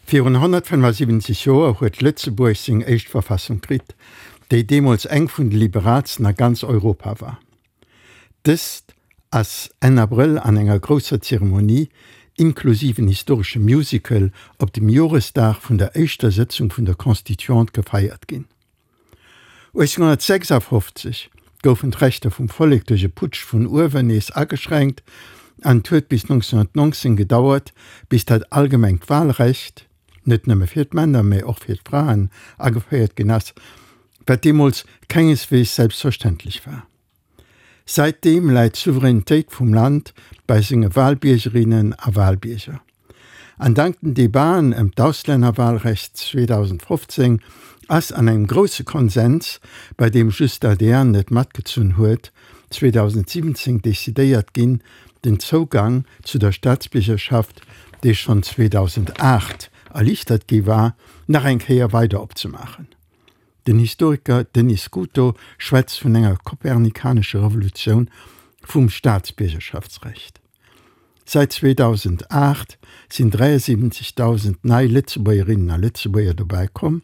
Virun 175 Joer huet Lëtzebuerg seng éischt Verfassung kritt, déi deemools eng vun de liberaalsten a ganz Europa war. Dëst ass Enn Abrëll an enger grousser Zeremonie, inklusiv en historesche Musical, op dem Joresdag vun der éischter Sëtzung vun der Constituante gefeiert ginn. 1856 goufen d'Rechter vum Vollek duerch e Putsch vun uewen nees ageschränkt an et huet bis 1919 gedauert, bis dat allgemengt Walrecht, net nëmme fir d'Männer, mä och fir d'Fraen, ageféiert ginn ass, wat deemools kengeswees selbstverständlech war. Säitdeem läit d'Souveränitéit vum Land bei senge Walbiergerinnen a Walbierger. An dank den Debaten ëm d'Auslännerwalrecht 2015 ass an engem grousse Konsens, bei deem just d'ADR net matgezunn huet, 2017 decidéiert ginn, den Zougang zu der Staatsbiergerschaft, dee schonn 2008 erliichtert gi war, nach eng Kéier weider opzemaachen. Den Historiker Denis Scuto schwätzt vun enger kopernikanescher Revolutioun vum Staatsbiergerschaftsrecht. Säit 2008 sinn 73.000 nei Lëtzebuergerinnen a Lëtzebuerger dobäi komm,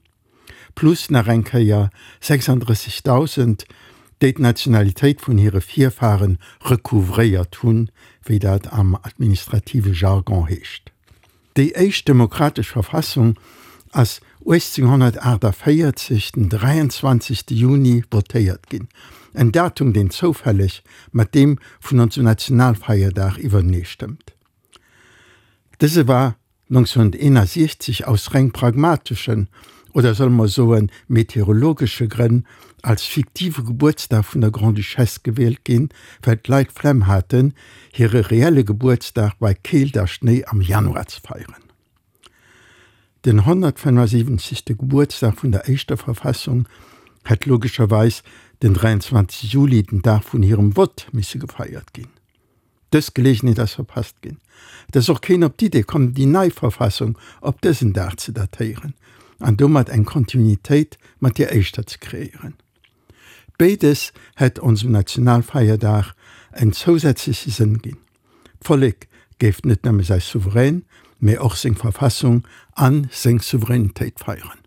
plus nach eng Kéier 36.000, déi d'Nationalitéit vun hire Virfare recouvréiert hunn, wéi dat am administrative Jargon heescht. Déi éischt demokratesch Verfassung ass 1848 den 23. Juni votéiert ginn, en Datum deen zoufälleg mat deem vun onsem Nationalfeierdag iwwertenee stëmmt. Dëse war 1961 aus reng pragmateschen, oder solle mer soen meteorologesche Grënn als fiktive Gebuertsdag vun der Grande-Duchesse gewielt ginn, well d'Leit d'Flemm haten, hire reelle Gebuertsdag bei Keelt a Schnéi am Januar ze feieren. Den 175. Gebuertsdag vun der éischter Verfassung hätt logescherweis den 23 Juli, den Dag vun hirem Vott, misse gefeiert ginn. Dës Geleegenheet ass verpasst ginn. Et ass och keen op d'Idee komm, déi nei Verfassung op dësen Dag ze datéieren an domat eng Kontinuitéit mat deer éischter ze kreéieren. Béides hätt onsem Nationalfeierdag en zousätzleche Sënn ginn, D'Vollek géif net nëmme säi Souverän, mee och seng Verfassung a seng Souveränitéit feieren.